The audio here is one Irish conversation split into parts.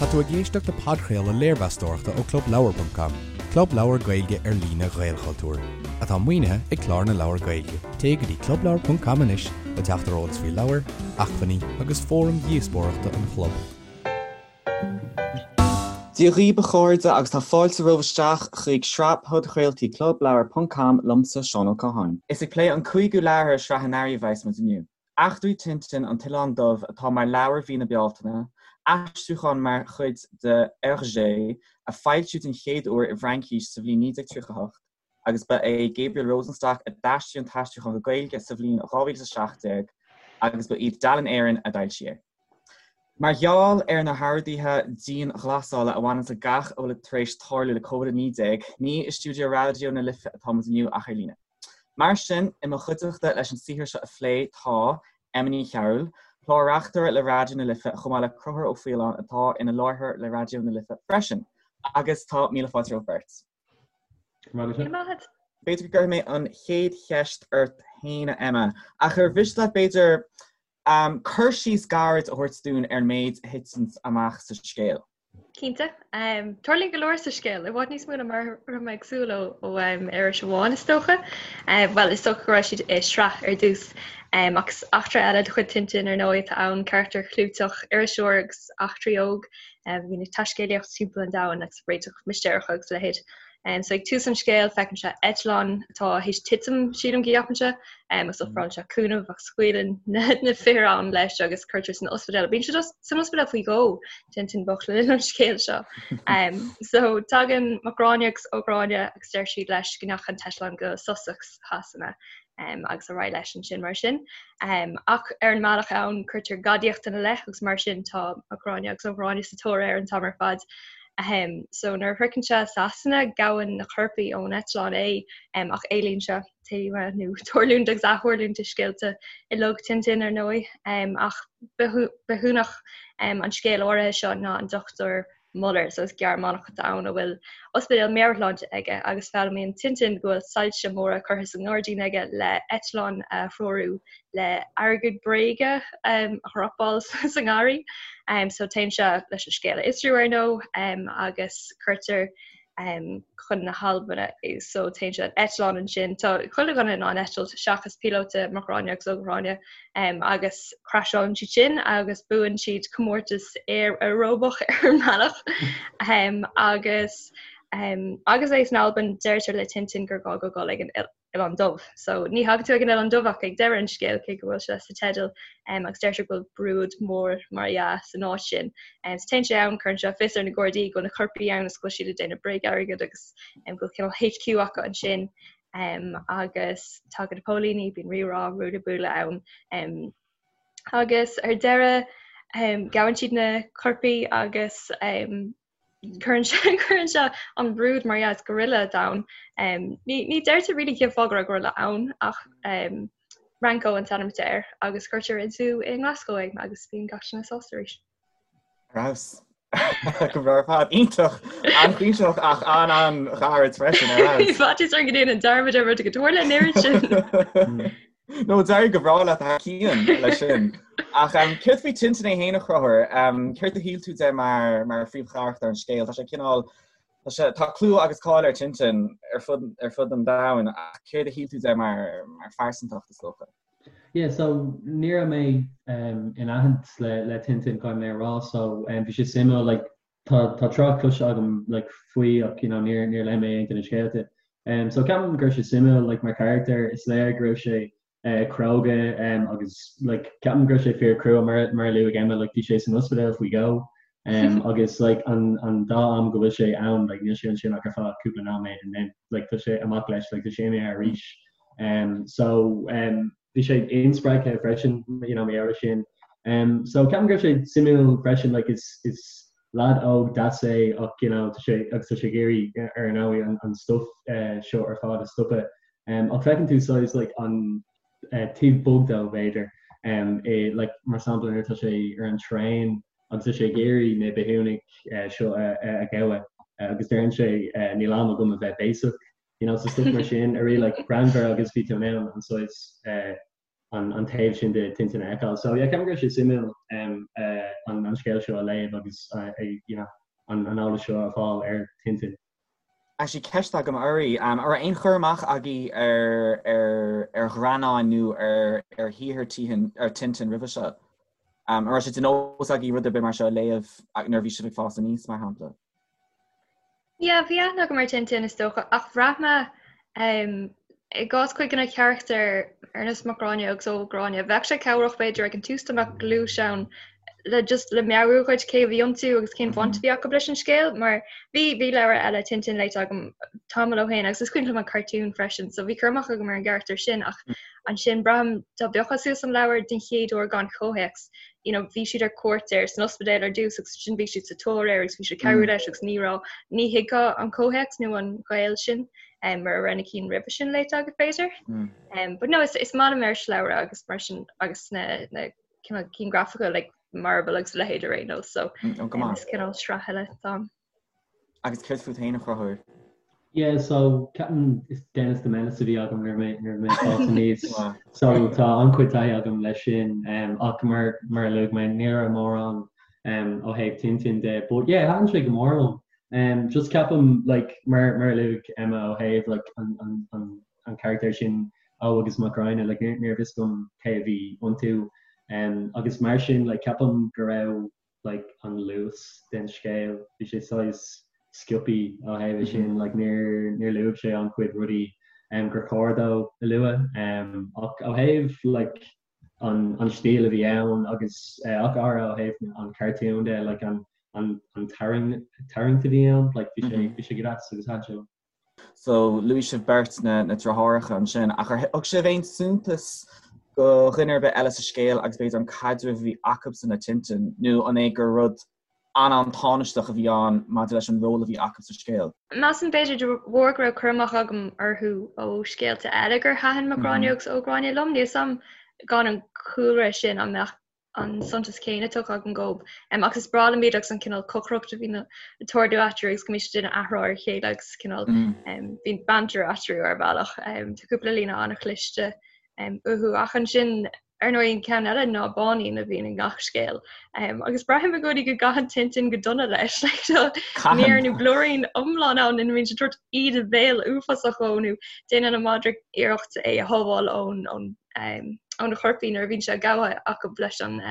Tá tú ag éisteacht le podchraoladh léirmheastóireachta ó ClubLeabhar.com, club leabhar Gaeilge ar líne Ghaelchultúir, atá maoinithe ag Clár na Leabhar Gaeilge. Téigh go dtí clubleabhar.com anois le teacht ar eolas faoi leabhair, acmhainní agus fóraim dhíospóireachta an chlub. Dia dhaoibh a chairde agus tá fáilte romhaibh isteach chuig sraith podchraoltaí Clubleabhar ponc com liomsa Seán Ó Catháin. Is ag plé an cúigiú leabhar i sraith an earraigh a bheas muid inniu. Eachtraí Tintin, An tOileán Dubh atá mar leabhar mhí na Bealtaine, aistriúchán mar chuid de Hergé a foilsíodh den chéad uair i bhFraincís sa bhliain 1938 agus ba é Gabriel Rosenstock a d'aistrigh an t-aistriúchán go Gaeilge sa bhliain 2017 agus ba iad Dalen Éireann a d'fhoilsigh é. Mar gheall ar na horduithe dianghlasála a bhaineanns le gach a bhfuil tar éis tarlú le Covid-19, ní i stiúideo Raidió na Life atá muid inniu ach ar líne. Mar sin, i mo chuideachta leis an saothar seo a phlé tá, Emma Ní Chearúil, clár-reachtaire le Raidió na Life chomh maith le Conchúr Ó Faoláin atá ina láithreoir le Raidió na Life freisin. Agus tá míle fáilte romhaibh beirt. Go raibh maith agat. B'fhéidir go gcuirfidh mé an chéad cheist ort féin, a Emma, ach ar mhiste leat b'fhéidir cur síos gairid a thabhairt dúinn ar an méid a thiteanns amach sa scéal? Cinnte. Tarlaíonn go leor sa scéal, i bhfad níos mó ná mar a raibh mé ag súil ó iris amháin is dócha. Bhuel, is dócha go raibh siad i sraith ar dtús. Ach is eachtra eile de chuid Tintin ar ndóigh atá ann, carachtar clúiteach, iriseoir agus eachtraí óg a bhíonn ag taiscéalaíocht timpeall an domhain agus réiteach mistéireach agus a leithéid. So ag tús an scéil feiceann sé eitleán atá théis titim, sílim go gceapann sé, agus ofrálann sé cúnamh ach scaoileann na fir ann leis agus cuirtear san ospidéal. Bíonn sé san ospidéal faoi dhó, Tintin bocht le linn an scéil seo. So tagann Mac Gráinne agus Ó Gráinne agus deir siad leis go ndeachaigh an t-eitleán go Sussex Shasana agus ar aghaidh leis ansin mar sin. Ach ar an mbealach ann cuirtear gadaíocht ina leith agus mar sin tá Mac Gráinne agus Ó Gráinne sa tóir air an t-am ar fad. So nuair a shroicheann sé Sasana gabhann na coirpigh ón eitleán é ach éalaíonn sé taobh nó tarlúint agus aththarlúint i scéalta uilig Tintin ar ndóigh. Ach bithiúnach an scéil áirithe seo ná an Dr. Muller, so is Gearmánach atá ann a bhfuil ospidéal meabhairshláinte aige agus foghlaimíonn Tintin go bhfuil soilse móra curtha sa ngairdín aige le eitleán a threorú le airgead bréige a dhropáil sa ngarraí. So téann sé leis an scéal a fhiosrú ar ndóigh agus cuirtear chun na hAlban é. So téann sé ar eitleán ansin. Tá chuile dhuine in ann eitilt seachas píolóta Mac Gráinne agus Ó Gráinne agus craiseálann siad sin agus buann siad comórtas aeróbach ar an mbealach agus agus é san Albain deirtear le Tintin gur gá dó dul ag an Oileán Dubh. So ní thagann tú ag an Oileán Dubh ach ag deireadh an scéil cé go bhfuil sé sa teideal agus deirtear go bhfuil brúid mór mar dhea san áit sin. So téann sé ann, cuireann sé fios ar na Gardaí go bhfuil na coirpigh ann agus go bhfuil siad ag déanamh bréag-airgead agus go bhfuil cineál HQ acu ansin agus tagann na póilíní, bíonn rírá, ruaille buaille ann agus ar deireadh gabhann siad na coirpigh agus Cuireann sé cuireann sé an brúid mar dhea is gorilla atá ann. Ní ní deirtear really cén fáth go raibh gorilla ann ach Ranko an t-ainm atá air agus cuirtear i zú i nGlasgow é agus bíonn gach duine sásta arís. Ar fheabhas. Go breá ar fad. Iontach! An-chuimsitheach ach an-an-ghairid freisin ar fheabhas. Bhí faitíos orm go ndéanfainn dearmad ar rud go dtarla an oiread sin. No, d'éirigh go breá leat thar cionn leis sin. Ach céard faoi Tintin é féin a Chonchúir? Céard a shíl tú de mar mar phríomhcharachtar an scéil? Tá sé cineál tá sé tá clú agus cáil ar Tintin ar fud ar fud an domhain ach céard a shíl tú de mar mar phearsantacht is dócha? Yeah, so ní raibh mé in aithint le le Tintin caithfidh mé a rá so bhí sé suimiúil like Tá tá trácht cloiste agam like faoi ach you know níor níor léigh mé aon de na scéalta. Um so ceapaim go raibh sé suimiúil like mar charachtar is léir go raibh sé eh cróga um agus like ceapaim go raibh sé fíor crua mar mar a luaigh Emma like bhí sé san ospidéal faoi dhó um agus like an an dá am go bhfuil sé ann like níl sé ansin ach ar feadh cúpla nóiméad and then like tá sé amach leis like tá sé imithe arís. Um so um bhí sé inspreagtha freisin you know mar gheall air sin. Um, so ceapaim go raibh sé suimiúil freisin like is is lad óg deas é ach you know tá sé agus tá sé ag iarraidh ar ndóigh an, an stuff uh, seo ar fad a stopadh. Um, ach feiceann tú saghas like an uh, taobh bog dó b'fhéidir um, i, like, mar sampla nuair atá sé ar an traein agus tá sé ag iarraidh na bithiúnaigh uh, seo a, a, a ghabhadh uh, agus deireann sé uh, níl am agam a bheith béasach You know, so stuff mar sin a really like greannmhar agus bhí tú in ann an saghas eh, an, an taobh sin de Tintin a fheiceáil. So yeah, ceapaim go raibh sé suimiúil um, uh, an scéal seo a léamh agus you know an eolas seo a fháil ar Tintin. Actually ceist agam oraibh, an raibh aon chur amach agaibh ar ar ar ghreannáin nó ar ar shaothar Tintin ar Tintin roimhe seo? An raibh sé de nós agaibh rud ar bith mar seo a léamh nuair a bhí sibh ag fás aníos, mar shampla? Yeah, bhí aithne agam ar Tintin is dócha, ach bhraith mé i gcás cuid de na carachtair ar nós Mac Gráinne agus Ó Gráinne, bheadh sé cabhrach b'fhéidir ag an tús dá mbeadh gluais ann le just le meabhrú dhuit cé a bhí iontu agus cén bhaint a bhí acu leis an scéal mar bhí bhí leabhar eile Tintin léite agam tamall ó shin agus is cuimhin liom an cartún freisin so bhí cur amach agam ar an gcarachtar sin ach ansin braithim dá bpiocfá suas an leabhar den chéad uair gan chomhthéacs you know bhí siad ar cuairt air san ospidéal ar dtús agus ansin bhí siad sa tóir air agus bhí siad ag cabhrú leis agus ní raibh ní thuigfeá an comhthéacs nó an gaol sin um, mura raibh na cinn roimhe sin léite agat b'fhéidir. Mm. Um, but no, is, is maith liom irisleabhra agus mar sin agus na, na cineál cinn grafacha like Marvel agus a leithéid ar aon nós so mm, oh, um, is cineál sraith eile dom. Agus céard fút féin a Chonchúir? Yeah, so ceapaim is Dennis the Menace a bhí agam nuair mé nuair mé fás aníos. So tá an-chuid taithí agam leis sin um, ach mar mar a luaigh mé ní raibh mórán um, ó thaobh Tintin de, but yeah, thaitin sé go mór liom. Um, just ceapaim like, mar mar a luaigh Emma ó thaobh like, an, an, an, an charachtar sin Ó agus Mac Gráinne like, ní raibh fhios agam cé a bhí iontu. Um, agus mar sin like, ceapaim go raibh like, an luas den scéal bhí sé saghas sciobtha ó thaobh mm -hmm. sin like, níor níor luaigh sé an-chuid rudaí um, gur chóir dó a lua um, ach ó thaobh like, an an stíl a bhí ann agus ach go háirithe ó thaobh an cartún de like an an an tarraing tarraingt a bhí ann like bhí sé bhí sé go deas agus thaitin sé liom. So luaigh sibh beirt na na deartháireacha ansin ach ar thug sibh aon suntas do dhuine ar bith eile sa scéal agus b'fhéidir an caidreamh a bhí acubsan le Tintin nó an é gur rud an-an-tánaisteach a bhí ann maidir leis an ról a bhí acu sa scéal. Measaim b'fhéidir de bharr go raibh cur amach agam orthu ó scéalta eile gur thaitin Mac Gráinne agus Ó Gráinne liom. Níl 'fhios a'm gan an cúlra sin an mbeadh an suntas céanna tugtha agam dóibh. Agus is breá liom iad agus an cineál cocaireacht a bhíonn ag tarlú eatarthu agus go mbíonn siad ag déanamh athrá ar a chéile agus cineál bíonn banter eatarthu ar bhealach. Tá cúpla líne an-chliste uathu ach ansin Ar ndóigh, an ceann eile ná Báinín a bhíonn i ngach scéal. Agus braithim i gcónaí go gcaitheann Tintin go dona leis. Tá mír nó blúirín iomlán ann ina mbíonn sé ag tabhairt íde bhéil uafásach dhó nó déanann an madra iarracht é a shábháil ón ón ó na coirpigh nuair a bhíonn sé gabhtha acu leis an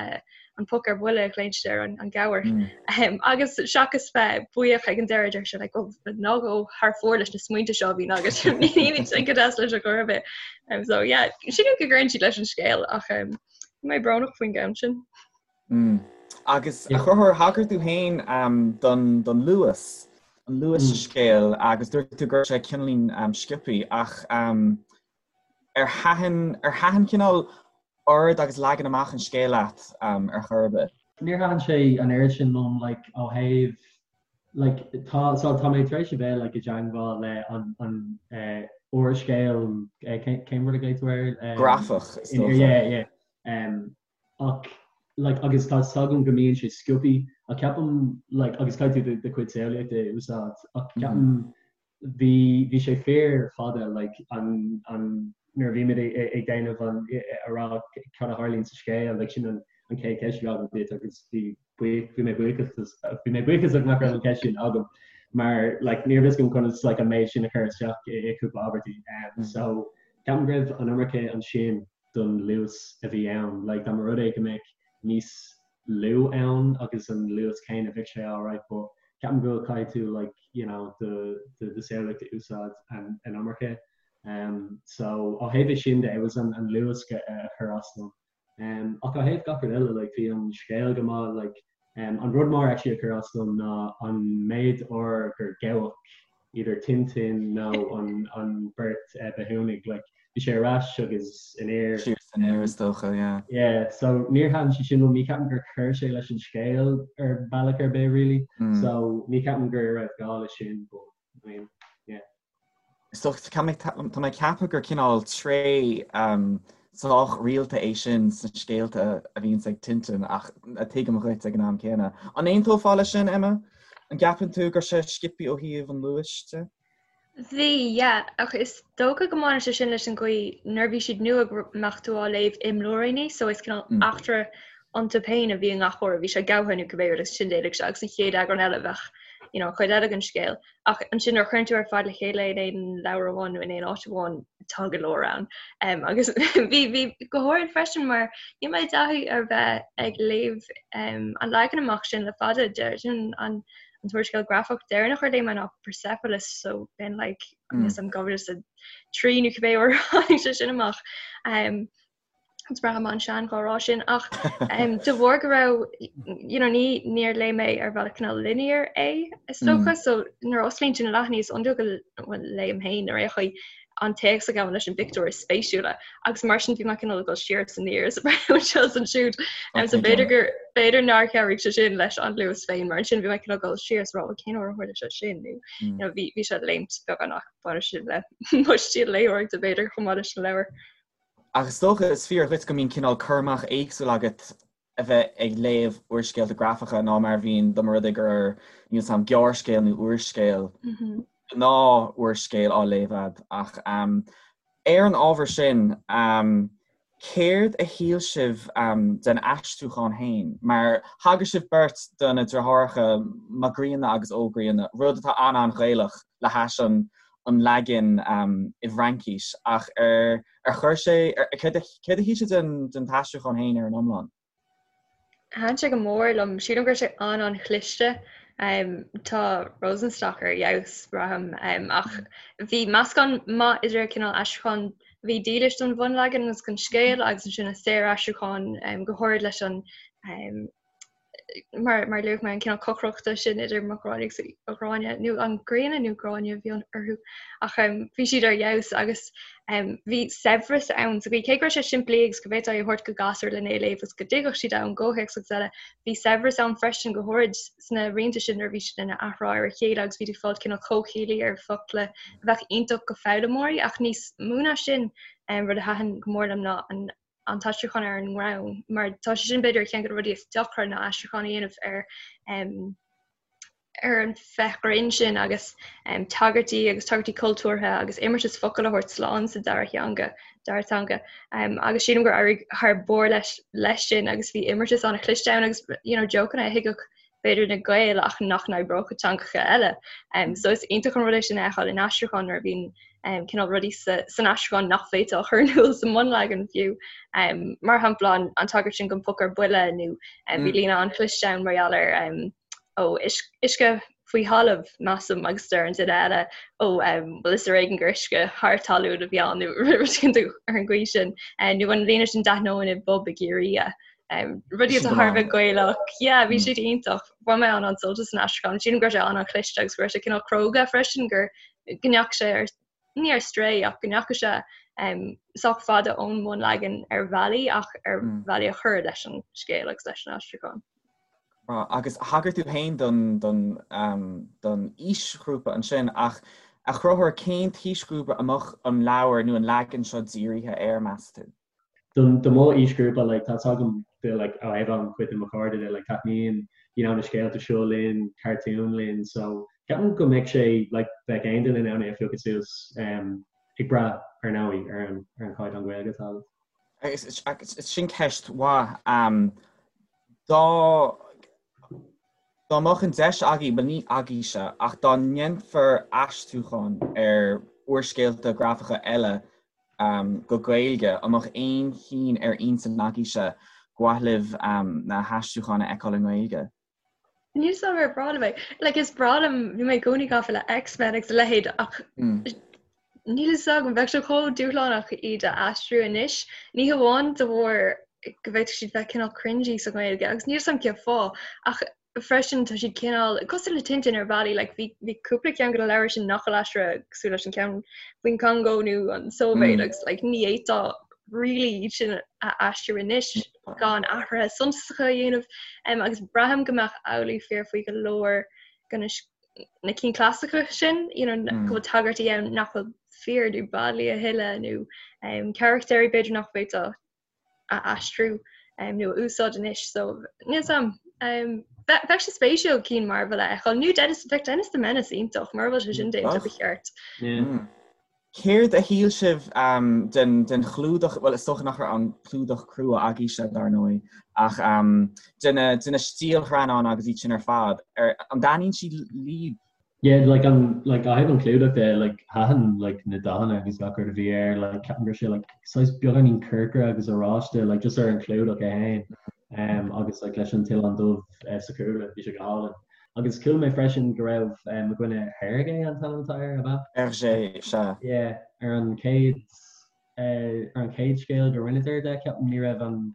an poc ar buile a ghlaonn siad air an gabhar. Agus seachas bheith buíoch ag an deireadh deir sé like, oh, ná gabh thar fóir leis na smaointe seo a bhíonn agat ní bhíonn go deas leis ar chor ar bith. Um, so yeah, sílim go gcuireann siad leis an scéal ach um, mé brónach faoin gceann sin. Mm. Agus a Chonchúir thagair tú féin um, don, don luas an luas mm. scéil agus dúirt tú go raibh sé cineáilín um, sciobtha ach um, ar thaitin ar thaitin cineál ord agus leagan amach an scéil leat ar chor ar bith? Níor thaitin sé an oiread sin liom like ó thaobh like tá so tá mé tar éis a bheith like i dteangmháil le an an eh úrscéal eh cén cén rud a ghlaoigh tú air? Um, Grafach is dócha. Yeah yeah um ach like agus tá 's agam go mbíonn sé sciobtha ach ceapaim like agus caithfidh tú do chuid samhlaíochta a úsáid ach ceapaim bhí bhí sé fíor fada like an an nuair a bhí muid ag déanamh an a rá cad a tharlaíonn sa scéal like sin an an chéad cheist a bhí agam duit agus bhí buíoch bhí mé buíochas bhí mé buíochasach nach raibh an cheist sin agam mar like ní raibh fhios agam conas like an méid sin a chur isteach i i cúpla abairtí um so ceapaim go raibh an iomarca ansin don luas a bhí ann. Like dá mba rud é go mbeadh níos lú ann agus an luas céanna bheadh sé alright but ceapaim go caithfidh tú like you know do do do samhlaíocht a úsáid an an iomarca. Um so ó thaobh é sin de it was an an luas a chuir as dom. Um ach ó thaobh gach rud eile like bhí an scéal go maith like Um, an rud mór actually a chuir as dom ná an méid uair gur gabhadh either Tintin nó an, an beirt uh, bithiúnaigh, like, bhí sé ar ais agus aniar. Siar is aniar is dócha, yeah. Yeah, so níor thaitin sé sin liom, ní ceapaim gur chuir sé leis an scéal ar bealach ar bith really, mm. so ní ceapaim go raibh gá leis sin, but I mean, yeah. Is dócha, tá mé ag ceapadh gur cineál tréith sách rialta é sin sna scéalta a bhíonns ag Tintin ach tuigim dhuit ag an am céanna. An aontófá leis sin, Emma? An gceapann tú go raibh sé sciobtha ó thaobh an luais de? Bhí, yeah, ach is dócha go mbaineann sé sin leis an gcaoi nuair a bhí siad nua go mbeadh tú á léamh i mblúiríní so is cineál eachtra. iontu féin a bhí i ngach uair a bhí sé gabhtha nó cibé rud agus ansin d'éalaigh sé agus an chéad eagrán eile bheadh you know, an chuid eile den scéal. Ach ansin nuair a chuireann tú ar fad le chéile in aon leabhar amháin nó in aon áit amháin tá go leor ann. Um, agus bhí bhí go háirid freisin mar níl mé i dtaithí ar bheith ag léamh um, an leagan amach sin le fada deir sin an an t-úrscéal grafach deireanach ar léigh mé ná Persepolis so been like mm. am 2003 nó cibé uair a tháinig sé sin amach. Um, Is braithim an-sean dhá rá sin ach de bharr go raibh you know, ní níor léigh mé ar bhealach cineál linear é is dócha so nuair a osclaíonn tú na leathanaigh is iondúil go bhfuil léim féin ar aon chaoi an téacs a ghabhann leis an bpictiúr is spéisiúla agus mar sin bhí mé cineál ag dul siar is aniar is anseo is ansiúd so b'fhéidir gur b'fhéidir nár chabhraigh sé sin leis an luas féin mar ansin bhí mé cineál dul siar is rá cén uair a tharla sé sin nó you know, bhí bhí sé ag léimt beagán ach baineann sin le mo stíl léitheoireachta b'fhéidir chomh maith leis an leabhar. Ach is dócha, is fíor dhuit go mbíonn cineál cur amach éagsúil agat a bheith ag léamh úrscéalta grafacha ná mar a bhíonn dá mba rud é gur, níl 's a'm, gearrscéal nó úrscéal, gnáth-úrscéal á léamh a'd. Ach ar an ábhar sin, céard a shíl sibh den aistriúchán féin? Mar thagair sibh beirt do na deartháireacha Mac Grianna agus Ó Grianna, rud atá an-an-Ghaelach le hais an an leagan i bhFraincis ach ar ar chuir sé céard a shíl sibh den den t-aistriúchán féin ar an iomlán? Thaitin sé go mór liom. Sílim go raibh sé an-an-chliste. Tá Rosenstock ar fheabhas, braithim, ach bhí meascán maith idir cineál aistriúchán a bhí dílis don bhunleagan agus don scéal agus ansin an saoraistriúchán go háirid leis an mar mar luaigh mé an cineál cocaireachta sin idir Mac Gráinne agus Ó Gráinne nó an Grianna nó Gráinne a bhí orthu ach um, bhí siad ar fheabhas agus um, bhí saibhreas ann so bhí cé go raibh sé simplí agus go bhféadfá é a thabhairt go gasúr lena é léamh agus go dtuigfeadh siad an gcomhthéacs agus eile bhí saibhreas ann freisin go háirid sna rianta sin nuair a bhí siad ina athrá ar a chéile agus bhí tú ag fáil cineál comhchiallaí ar focla a bheadh iontach go foghlaimeoirí ach níos mó ná sin um, rud a thaitin go mór liom ná an an t-aistriúchán ar an ngreann, mar tá sé sin b'fhéidir ceann de na rudaí is deacra ná aistriúchán a dhéanamh ar um, ar an féith ghrinn sin agus um, tagairtí agus tagairtí cultúrtha agus imeartas focal a thabhairt slán sa dara theanga dara teanga um, agus sílim gur éirigh thar barr leis leis sin agus bhí imeartas an-chliste ann agus you know, jokeanna a thuigfeadh b'fhéidir na Gaeil ach nach n-oibreodh i dteangacha eile. Um, so is iontach an rud é sin a fheiceáil in aistriúchán nuair a bhíonn um, cineál rudaí sa, san aistriúchán nach bhféadfá a chur in iúl sa mbunleagan fiú. Um, mar shampla an, an tagairt sin don phóca ar buile nó um, bhí mm. líne an-chliste ann mar gheall ar um, ó uisce faoi thalamh measaim agus deir an duine eile ó um, well is ar éigean gur uisce thar talún a bhí ann nó ar an gcaoi sin uh, nó an líne sin d'aithneoinn i bpub i gCiarraí Um, rudaí atá thar a bheith Gaelach, yeah, bhí siad iontach. Bhain mé an-an-sult as an aistriúchán. Sílim go raibh sé an-an-chliste agus go raibh sé cineál cróga freisin gur go ndeachaigh sé ar ní ar strae ach go ndeachaigh sé um, sách fada ón mbunleagan ar bhealaí ach ar mm. bhealaí a chuir leis an scéal agus leis an aistriúchán. Agus thagair tú féin don, don, um, don aoisghrúpa ansin ach a Chonchúir cén t-aoisghrúpa a mbeadh an leabhar nó an leagan seo dírithe air meas tú? Don do mo aoisghrúpa like tá 'fhios agam de like ó thaobh an chuid de mo chairde de like taitníonn you know na scéalta seo linn, cartúin linn so ceapaim go mbeadh sé like bheadh aon duine in ann é a phiocadh suas um ag brath ar ndóigh ar an ar an chaighdeán Gaeilge atá agat. Agus sin ceist mhaith. Um, dá dá mbeadh an deis agaibh, bhuel ní agaibhse, ach dá ndéanfar aistriúchán ar úrscéalta grafacha eile go Gaeilge, an mbeadh aon chinn ar intinn agaibhse gur mhaith libh na haistriúcháin a fheiceáil i nGaeilge? Níl 'fhios agam ar bhreá liom é. Like is breá liom, bhí mé i gcónaí gafa le X-Men agus a leithéid ach níl 'fhios agam, bheadh sé chomh dúshlánach iad a aistriú anois, ní hamháin de bharr go bhféadfadh siad bheith cineál cringy sa Ghaeilge agus níl 'fhios agam cén fáth ach freisin tá siad cineál cosúil le Tintin ar bhealaí like bhí bhí cúpla ceann de na leabhair sin nach bhfuil aistrithe cosúil leis an ceann faoin Congo nó an Sóivéid mm. agus like ní fhéadfá really iad sin a aistriú anois gan athruithe suntasacha a dhéanamh um, agus braithim go mbeadh amhlaidh fíor faoi go leor de na na cinn clasaiceacha sin you know, mm. go bhfuil tagairtí ann nach bhfuil fíor nó bailí a thuilleadh nó um, carachtéirí b'fhéidir nach bhféadfá a aistriú nó a úsáid anois so níl 'fhios a'm. Bheadh sé spéisiúil cinn Marvel a fheiceáil nó Dennis bheadh Dennis the Menace iontach mura bhfuil sé sin déanta ba cheart. Céard a shíl sibh den den chlúdach, bhuel is dócha nach raibh an clúdach crua agaibhse dar ndóigh, ach de na de na stiallghreannáin agus iad sin ar fad, ar an dtaitníonn siad libh? Yeah, like an like ó thaobh an clúdach de, like thaitin like na dathanna agus gach rud a bhí air, like ceapaim go raibh sé like saghas beagáinín corcra agus oráiste like just ar an chlúdach é féin um, agus like leis an t-oileán dubh uh, sa chúlra, bhí sé go hálainn. Agus chuala mé freisin go raibh mo dhuine Hergé an t-ainm atá air, ab ea? Hergé, sea. Yeah, ar an chéad, ar an chéad scéal go rinneadar de, ceapaim, ní raibh an,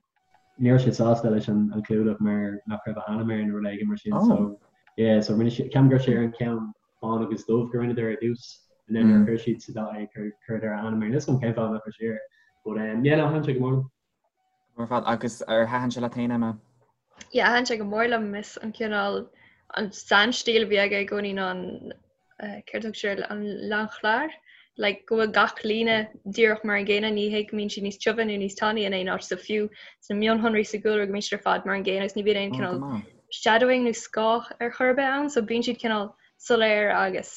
ní raibh sé sásta leis an chlúdach mar nach raibh a ainm air nó rud éigin mar sin, so, yeah, so rinne siad, ceapaim go raibh sé ar an ceann bán agus dubh go rinneadar ar dtús, and then nuair a chuir siad sa dath é, chuireadar a ainm air. Níl 'fhios agam cén fáth nach raibh sé air, but, yeah, no, thaitin sé go mór liom. Ar fad agus ar thaitin sé leat féin, Emma? Yeah, thaitin sé go mór liom. Is an cineál an sainstíl a bhí aige i gcónaí ná an céard a thug sé air, an l'enclair, like go bhfuil gach líne díreach mar an gcéanna, ní hé go mbíonn siad níos tiubhe nó níos tanaí in aon áit, so fiú sna mionshonraí sa gcúlra go mbíonn siad ar fad mar an gcéanna agus ní bhíonn aon cineál shadowing nó scáth ar chor ar bith ann, so bíonn siad cineál soiléir agus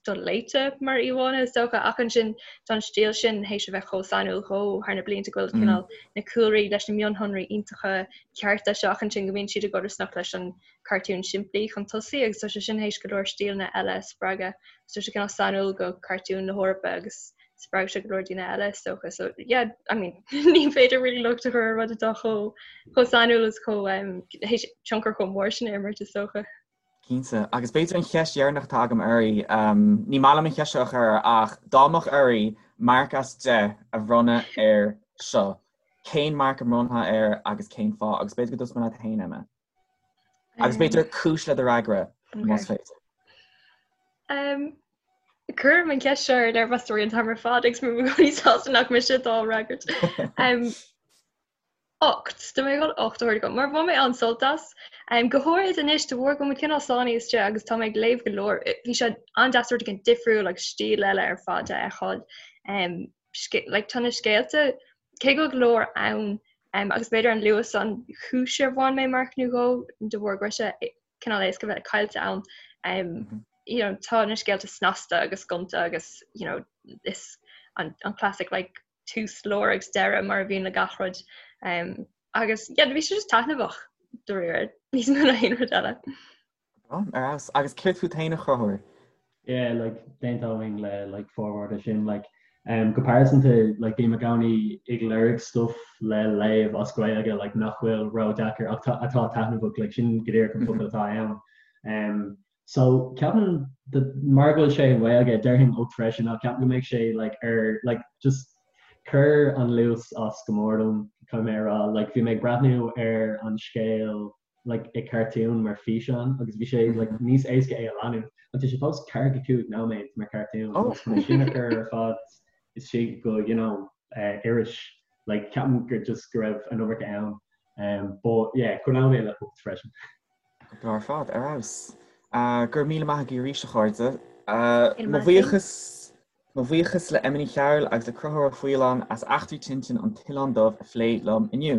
doléite mar íomhánna is dócha, ach ansin tá an stíl sin théis a bheith chomh sainiúil dhó thar na blianta go bhfuil cineál na cúlraí leis na mionshonraí iontacha cearta seo ach ansin go mbíonn siad i gcodarsnacht leis an cartún simplí chun tosaigh agus tá sé sin théis go leor stíleanna eile a spreagadh. Tá sé cineál sainiúil go cartúin na hEorpa agus spreag sé go leor daoine eile is dócha. So yeah, I mean ní féidir really locht a chur ar rud atá chomh chomh sainiúil is chomh um, théis tionchar chomh mór sin a imirt is dócha. Cinnte. Agus b'fhéidir an cheist dheireanach atá agam oraibh, ní maith liom an cheist seo a chur, ach dá mbeadh oraibh marc as 10 a bhronnadh air seo, cén marc a mbronnfá air agus cén fáth? Agus b'fhéidir go dtosóidh mé leat féin, Emma. Agus b'fhéidir cúis le do fhreagra, más féidir. Cuirim an cheist seo ar léirmheastóirí an t-am ar fad agus bím i gcónaí sásta nach mise atá á fhreagairt. 8. Tá mé ag dul 8 a thabhairt dó, mar bhain mé an-sult as. Go háirid anois, de bharr go bhfuil muid cineál sáinnithe istigh agus tá mé ag léamh go leor, bhí sé an-deas rud éigin difriúil agus stíl eile ar fad a fheiceáil. Like, tá na scéalta, cé go bhfuil go leor ann, agus b'fhéidir an luas an chúis ar bhain mé marc nó dhó, de bharr go raibh sé cineál éasca bheith caillte ann. You know, tá na scéalta snasta agus gonta agus, you know, is an, an classic like tús, lár agus deireadh mar a bhíonn le gach rud. Um, agus yeah, bhí sé just taitneamhach dáiríre níos mó ná aon rud eile. Ar fheabhas. Agus céard fút féin a Chonchúir? Yeah, like, d'aontóinn le like, formhór de sin. Like, um, go pearsanta, like, bím i gcónaí ag lorg stuff le léamh as Gaeilge like, nach bhfuil ródheacair ach atá taitneamhach, like, sin go díreach an focal atá ann. Um, So ceapaim mar go bhfuil sé i nGaeilge déarfainn 8 freisin ach ceapaim go mbeidh sé like ar like just chuir an luas as go mór dom caithfidh mé a rá like bhí mé ag breathnú ar an scéal like i cartún mar físeán agus bhí sé like níos éasca é a leanúint ach tá sé fós 45 nóiméad mar cartún agus chun é sin a chur ar fad istigh go you know uh, iris like ceapaim gur just go raibh an iomarca ann um, but yeah coinneoidh mé le 8 freisin. Go breá ar fad, ar fheabhas. Go raibh míle maith agaibh arís, a chairde. Mo bhuíochas Mo bhuíochas le Emma Ní Chearúil agus le Conchúr Ó Faoláin as Eachtraí Tintin an tOileán Dubh a phlé liom inniu.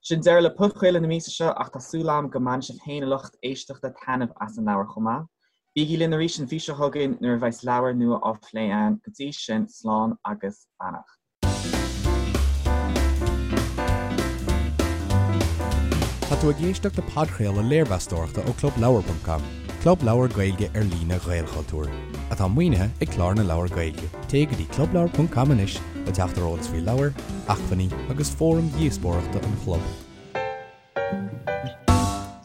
Sin deireadh le podchraoladh na míosa seo ach tá súil agam go mbainfidh sibh féin a lucht éisteachta taitneamh as an leabhar chomh maith. Bígí linn arís an mhí seo chugainn nuair a bheas leabhar nua á phlé againn. Go dtí sin, slán agus beannacht. Tá tú ag éisteacht le podchraoladh léirmheastóireachta ó ClubLeabhar.com, club leabhar Gaeilge ar líne Ghaelchultúir, atá maoinithe ag Clár na Leabhar Gaeilge. Téigh go dtí clubleabhar.com anois le teacht ar eolas faoi leabhair, acmhainní agus fóraim dhíospóireachta an chlub.